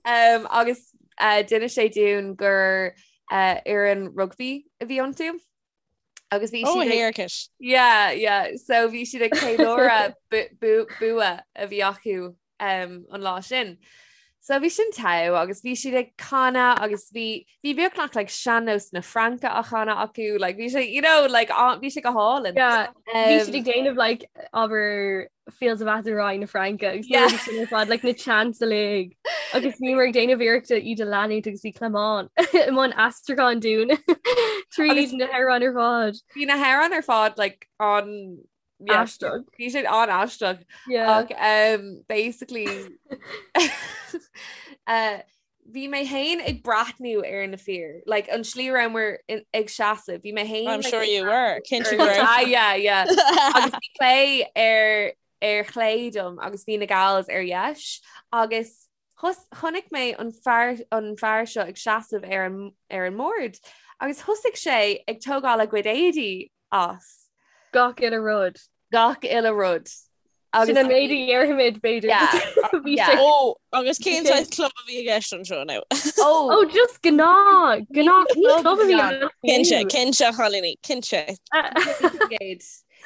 um, agus uh, d'inis sé dúinn gur uh, fhoireann rugby a bhí iontu. Agus bhí Oh, siad ag- héarcais. Yeah, yeah. So bhí siad ag ceiliúradh bu- bu- bua a bhí acu um, an lá sin. So bhí sin togha agus bhí siad ag canadh agus bhí bhí beagnach like sean-nós na Fraince á chanadh acu like bhí sé you know like á- bhí sé go hálainn. Yeah, bhí Um, siad ag déanamh like abair Fields of Athenry na Fraince agus Yeah. yeah. sin ar fad like na chants uilig agus bhíomar ag déanamh iarrachta iad a leanúint agus bhí Clément i mbun aistriúcháin dúinn tríd Agus- na hamhráin ar fad. Bhí na hamhráin ar fad like an Aisteach. Bhí siad an-aisteach. Yeah. Ach um, basically uh, bhí mé féin ag breathnú ar na fir, like an slí a rabhamar in- ag seasamh, bhí mé féin I'm like, sure ag you were. Cinnte ar- go raibh. Ah, yeah, yeah. Agus bhí Clé ar ar chlé dom agus bhí na gals ar dheis agus Chonaic mé an fear an fear seo ag seasamh ar an ar an mbord agus thosaigh sé ag tógáil a gcuid éadaí as. Gach uile rud. Gach uile rud. Agus Sin an méid a dhéarfaimid b'fhéidir. Yeah, yeah. Ó, agus cén saghas club a bhí i gceist anseo now? Ó, oh, just gnáth, gnáth ní club a bhí ann. Cinnte, cinnte, a chailíní, cinnte.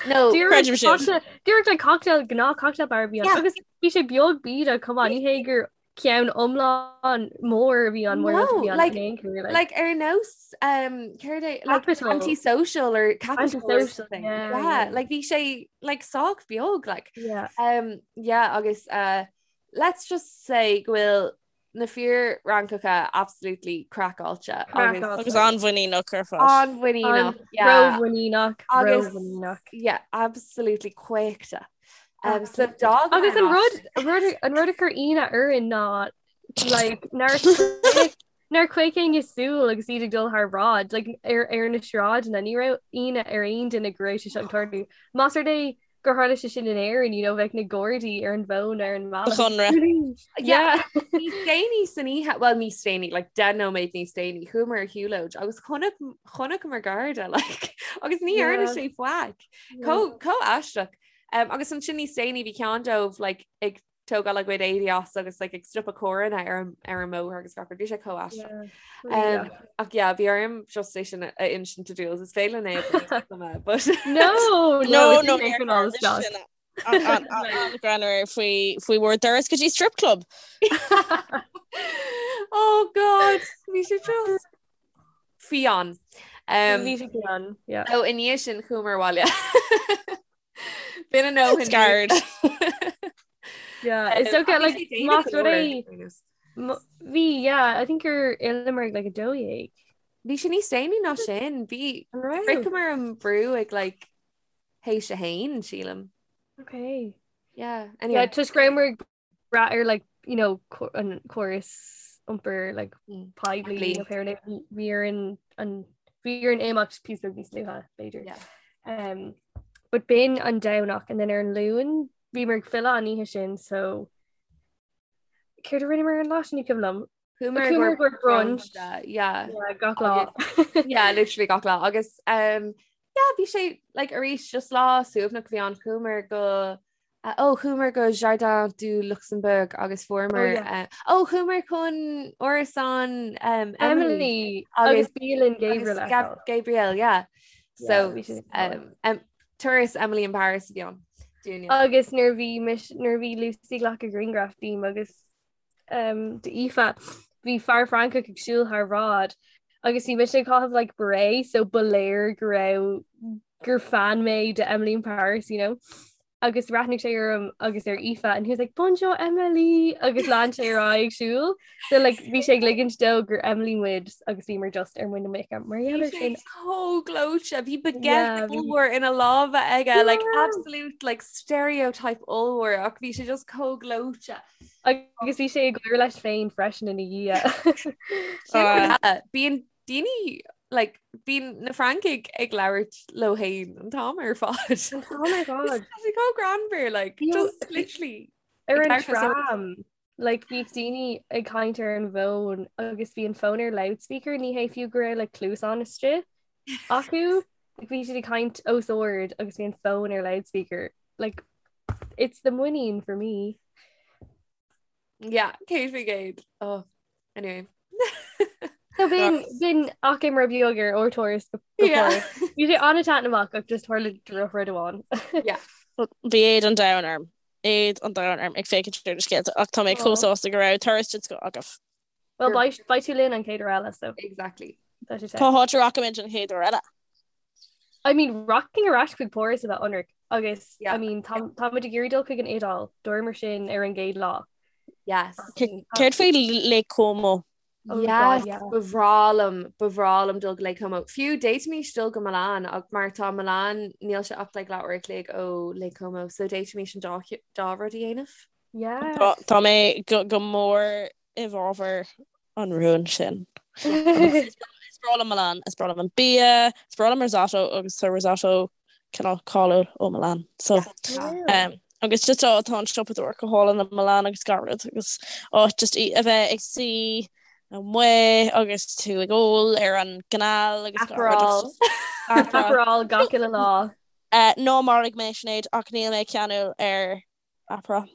No, creidim sin. Díreach like cocktail gnáth cocktail bar a bhí ann. Yeah. Agus bhí sé beag bídeach chomh maith, ní hé gur ceann iomlán mór a bhí ann mór No, a bhí ann like- in aon chor, like. Like ar nós um, céard é like Capital. antisocial or capital or Antisocial, something. yeah, Yeah, yeah. like bhí sé like sách beag like Yeah. um, yeah agus uh, let's just say go bhfuil na fir Fhrancacha absolutely craiceáilte agus Craiceáilte. Agus an-mhuiníneach ar fad. an-mhuiníneach yeah. Rómhuiníneach, Agus- rómhuiníneach. yeah absolutely caochta. Um, so Absolutely. dog Agus an rud an rud an rud a chuir ionadh orainn ná like nár nár chaoch éinne súil agus iad ag dul thar bráid like ar ar na sráideanna ní raibh ionadh ar aon duine go raibh sé seo ag tarlú. Más rud é gur tharla sé sin in Éirinn, you know, bheadh na Gardaí ar an bhfón ar an mbealach. Conradh. Yeah. Níos déanaí san oíche, well níos déanaí, like 10 nóiméad níos déanaí, chuamar ar shiúlóid agus chonaic chonaiceamar garda like agus ní dhearna Yeah. sé faic. Chomh chomh aisteach. Um, agus ansin níos déanaí bhí ceann dóibh like ag tógáil a gcuid éadaí as agus like ag stopadh carranna ar an ar an mbóthar agus gach rud. Bhí sé chomh aisteach. Um, ach yeah, bhí orm just é sin a insint do Jules. Is féidir linn é but No, no, no, no, An-ghreannmhar faoi faoi bhur dturas go dtí strip club. Oh God, bhí sé just fiáin. Um, Bhí sé fiáin, yeah. Ó i ndiaidh sin chuamar abhaile. B'in a ndóthain. Scared. Yeah, it's okay, like, más rud é bhí, yeah, I think gur fhilleamar ag like 12. Bhí sé níos déanaí ná sin, bhí shroicheamar an brú ag like théis a haon, sílim. Okay. Yeah, anyway. Yeah, toisc go rabhamar ag brath ar like, you know, an córas iompair like mm. poiblí nó pé bhí orainn an bhí orainn imeacht píosa beag níos luaithe, b'fhéidir. Yeah. Um, but b'in an Domhnach and then ar an Luan bhíomar ag filleadh an oíche sin so céard a rinneamar an lá sin ní cuimhin liom. Chuamar go brunch. Yeah. Yeah, gach lá. Yeah, literally gach lá. Agus um, yeah, bhí sé like arís just lá suaimhneach a bhí ann chuamar go uh, oh, chuamar go Jardin du Luxembourg agus fuaireamar Oh, yeah. uh, oh, chuamar chun árasán um, Emily Emily agus bialann Gabriel agus Gab Gabriel, yeah. So bhí sé um, um, turas Emily in Paris a bhí ann. Dúinne. Agus nuair bhí mis nuair bhí Lucy ag glacadh grianghraf díom agus um, d'Aoife, bhí fear Francach ag siúl thar bhráid agus bhí mise ag caitheamh like beret so ba léir go raibh gur fan mé de Emily in Paris, you know. Agus bhreathnaigh sé orm agus ar Aoife and he was like Bonjour Emily agus lean sé ar aghaidh ag siúl. So like bhí sé ag ligint dó gur Emily muid agus bhíomar just ar muin na muice mar Bhí gheall ar sé sin. chomh gleoite, bhí baguette Yeah, bhí- ollmhór ina lámha aige, like Yeah. absolute like stereotype ollmhór ach bhí sé just chomh gleoite. Agus bhí sé ag gáire leis féin freisin ina dhiaidh. Sin rud eile, bíonn daoine like, bíonn na Francaigh ag labhairt leo féin an t-am ar fad. An t-am ar fad. Tá sé chomh greannmhar, like, just literally. Ar an ag labhairt le tram, like, bhíodh daoine ag caint ar an bhfón agus bhí an fón ar loudspeaker, ní hé fiú go raibh like, cluasáin istigh acu, like, bhí siad ag caint os ard agus bhí an fón ar loudspeaker. Like, It's the muinín for me. Yeah, 100%. Oh, anyway. So b'in b'in achoimre beag ar ár dturas go Yeah. Páras. Bhí sé an-taitneamhach ach just tharla drochrud amháin. Yeah. Bhí éad an domhain orm. Éad an domhain orm ag féachaint ar na scéalta ach tá mé chomh Aw. sásta go raibh turas den scoth agaibh. Well beidh beidh tú linn an chéad uair eile so Exactly. tá sé Cá háit a rachaimid an chéad uair eile? I mean rachainn ar ais chuig Páras a bheith ionraic agus Yeah. I mean tá táimid ag iarraidh dul chuig an Iodáil dúramar sin ar an gcéad lá. Yes. Céard faoi Lake Como? Oh God, Yes, yeah. ba bhreá liom, ba bhreá liom dul go Lake Como. Fiú d'fhéadfaimis dul go Milan ach mar tá Milan níl sé ach like leathuair a chloig ó Lake Como, so d'fhéadfaimis an dá dá rud a dhéanamh. Yes. Tá mé go mór i bhfabhar an rúin sin. Is breá liom Milan, is breá liom an bia, is breá liom risotto agus tá risotto cineál cáiliúil ó Milan. So um, agus just tá tá an siopadóireacht go hálainn i Milan agus gach rud agus áit just í a bheith ag suí amuigh agus tú ag ól ar an gcanal agus gach rud Aperol. agus just Aperol. Aperol gach uile lá. Uh, ná maraigh mé Sinéad ach níl mé ceanúil ar Aperol.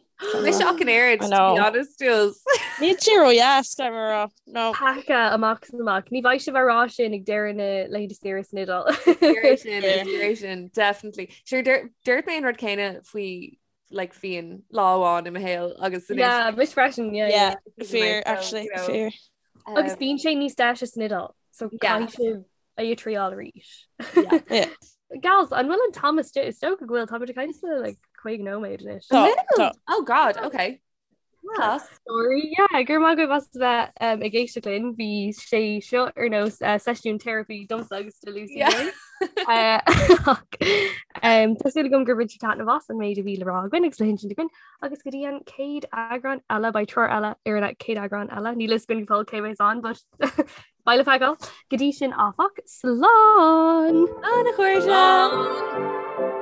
Mise ach an oiread, I to know. be honest, Jules. Níl sé ródheas, caithfidh mé a rá. No. Peaca amach is amach. Ní bheidh sibh á rá sin ag deireadh na laethanta saoire san Iodáil. Fíor sin, is fíor sin, definitely. Sure, dúirt mé an rud céanna faoi like fíon lá amháin i mo shaol agus anois Yeah, mise freisin, yeah, yeah. Yeah, fíor, actually, you know. fíor. Agus bíonn sé níos deise san Iodáil, so Yeah. caithfidh sibh é a thriail arís. Yeah. Yeah. Gals, an bhfuil an t-am istigh? Is dócha go bhfuil táimid ag caint le like 50 nóiméad anois. Tá, tá. Oh God, okay. Class. Sorry, yeah, go raibh maith agaibh as a bheith um, ag éisteacht linn. Bhí sé seo ar nós uh, seisiún therapy domsa agus do Lucy. Yeah. Linn. Uh, ach, um, Tá súil agam gur bhain sibh taitneamh as an méid a bhí le rá againn agus le hinsint againn agus go dtí an chéad eagrán eile beidh treoir eile ar an chéad eagrán eile. Níl a fhios againn go fóill cé bheas ann, but Beidh le feiceáil. Go dtí sin áfach, slán! Slán a chairde! Slán!